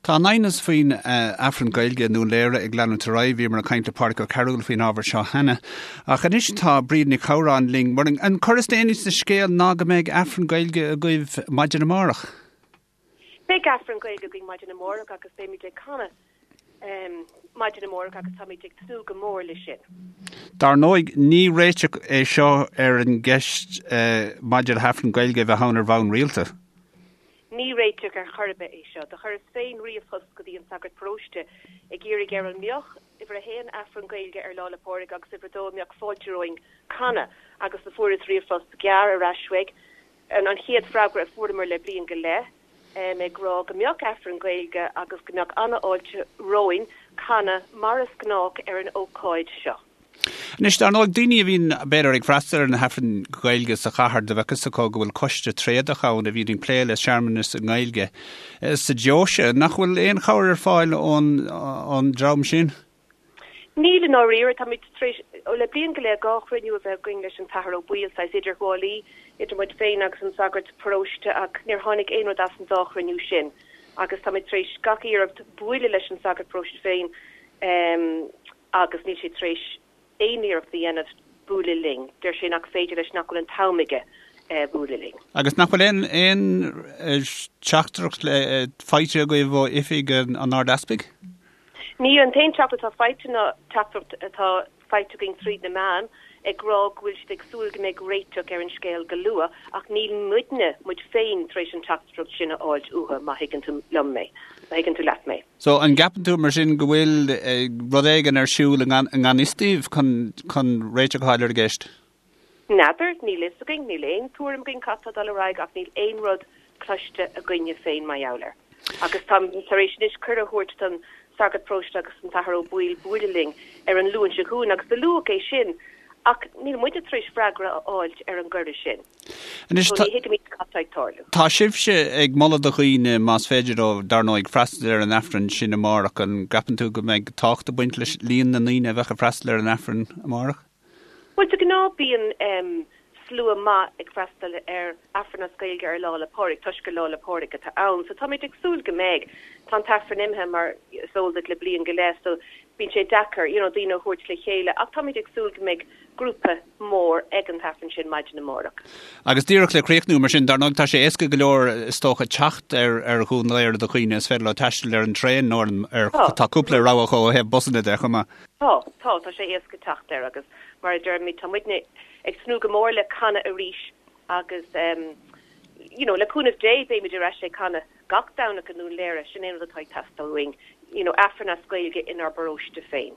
Tá an aighneas faoin Aifreann Gaeilge i nDún Léire ag leanúint ar aghaidh. Bhíomar ag caint le Pádraic Ó Cearúil faoin ábhar seo cheana. Ach anois tá Bríd Nic Shamhráin linn. Mar an cor is déanaí sa scéal ná go mbeidh Aifreann Gaeilge agaibh maidin amárach. Beidh Aifreann Gaeilge againn maidin amárach agus beimid ag canadh maidin amárach agus táimid ag tnúth go mór leis sin. Dar ndóigh, ní réiteach é seo ar an gceist maidir le hAifreann Gaeilge a bheith ann ar bhonn rialta. Ní réiteach ar chor ar bith é seo. Do chuireas féin ríomhphost go dtí an sagart paróiste ag iarraidh air an mbeadh, uimhir a haon, Aifreann Gaeilge ar Lá 'le Pádraig agus uimhir a dó, an mbeadh fáilte romhainn canadh agus do fuaireas ríomhphost gearr ar ais uaidh, an chéad freagra a fuaireamar le bliain go leith, ag rá go mbeadh Aifreann Gaeilge agus go mbeadh an-fháilte romhainn canadh mar is gnách ar an ócáid seo. Anois, dar ndóigh, daoine a bhíonn, b'fhéidir, ag freastal ar na hAifrinn Ghaeilge sa chathair, do bheadh fhios acu go bhfuil coiste tréadach ann a bhíonn ag plé le searmanais i nGaeilge sa deoise. Nach bhfuil aon chabhair ar fáil ón dream sin? Níl, i ndáiríre. Táimid tar éis, le bliain go leith, 2 chruinniú a bheith againn leis an tAthair Ó Baoill, saghas idirghabhálaí idir muid féin agus an sagart paróiste, ach níor tháinig aon rud as an dá chruinniú sin. Agus táimid tar éis gach iarracht buaileadh leis an sagart paróiste féin, agus níl sé tar éis aon iarracht a dhéanamh bualadh linn. Deir sé nach féidir leis, nach bhfuil an t-am aige bualadh linn. Agus nach bhfuil aon aon teachtaireacht faighte agaibh ó oifig an Ard-Easpaig? Níl. An t-aon teachtaireacht atá faighte ná teachtaireacht atá faighte againn tríd na meáin ag rá go bhfuil siad ag súil go mbeidh réiteach ar an scéal go luath ach níl muidne, muid féin, tar éis an teachtaireacht sin a fháilt uathu, má thuigeann tú liom mé, má thuigeann tú leat mé. So, an gceapann tú mar sin go bhfuil rud éigin ar siúl i ngan fhios daoibh chun réiteach a fháil ar an gceist? N'fheadar, níl fhios againn, níl aon tuairim againn cad tá ag dul ar aghaidh ach níl aon rud cloiste againne féin mar gheall air. Agus táim tar éis anois cuireadh a thabhairt don sagart paróiste agus don tAthair Ó Baoill buaileadh linn ar an Luan seo chugainn agus do luadh é sin ach níl muide tar éis freagra a fháilt ar an gcuireadh sin. Anois, So ní thuigimid cad tá ag tarlú. Tá sibhse ag moladh do dhaoine, más féidir leo, dar ndóigh, freastal ar an Aifreann sin amárach. An gceapann tú go mbeidh tábhacht ag baint leis líon na ndaoine a bheadh ag freastal ar an Aifreann amárach? Bhuel, de ghnáth bíonn slua maith ag freastal ar Aifreann as Gaeilge ar Lá 'le Pádraig toisc gur Lá 'le Pádraig atá ann. So táimid ag súil go mbeidh. Tá an tAifreann imithe mar is eol duit le bliain go leith so bíonn sé deacair you know daoine a thabhairt le chéile ach táimid ag súil go mbeidh grúpa mór ag an tAifreann sin maidin amárach. Agus díreach le críochnú, mar sin, dar ndóigh tá sé éasca go leor is dócha teacht ar ar Dhún Laoghaire do dhaoine, is féidir leo taisteal ar an traein nó ar an ar tá cúpla rogha ó thaobh busanna de chomh maith. Tá, tá, tá sé éasca teacht air agus mar a deirimid tá muidne ag tnúth go mór le canadh arís agus you know le cúnamh Dé beimid ar ais ag canadh gach Domhnach i nDún Léire, sin é an rud atá ag teastáil uainn, you know Aifreann as Gaeilge inár bparóiste féin.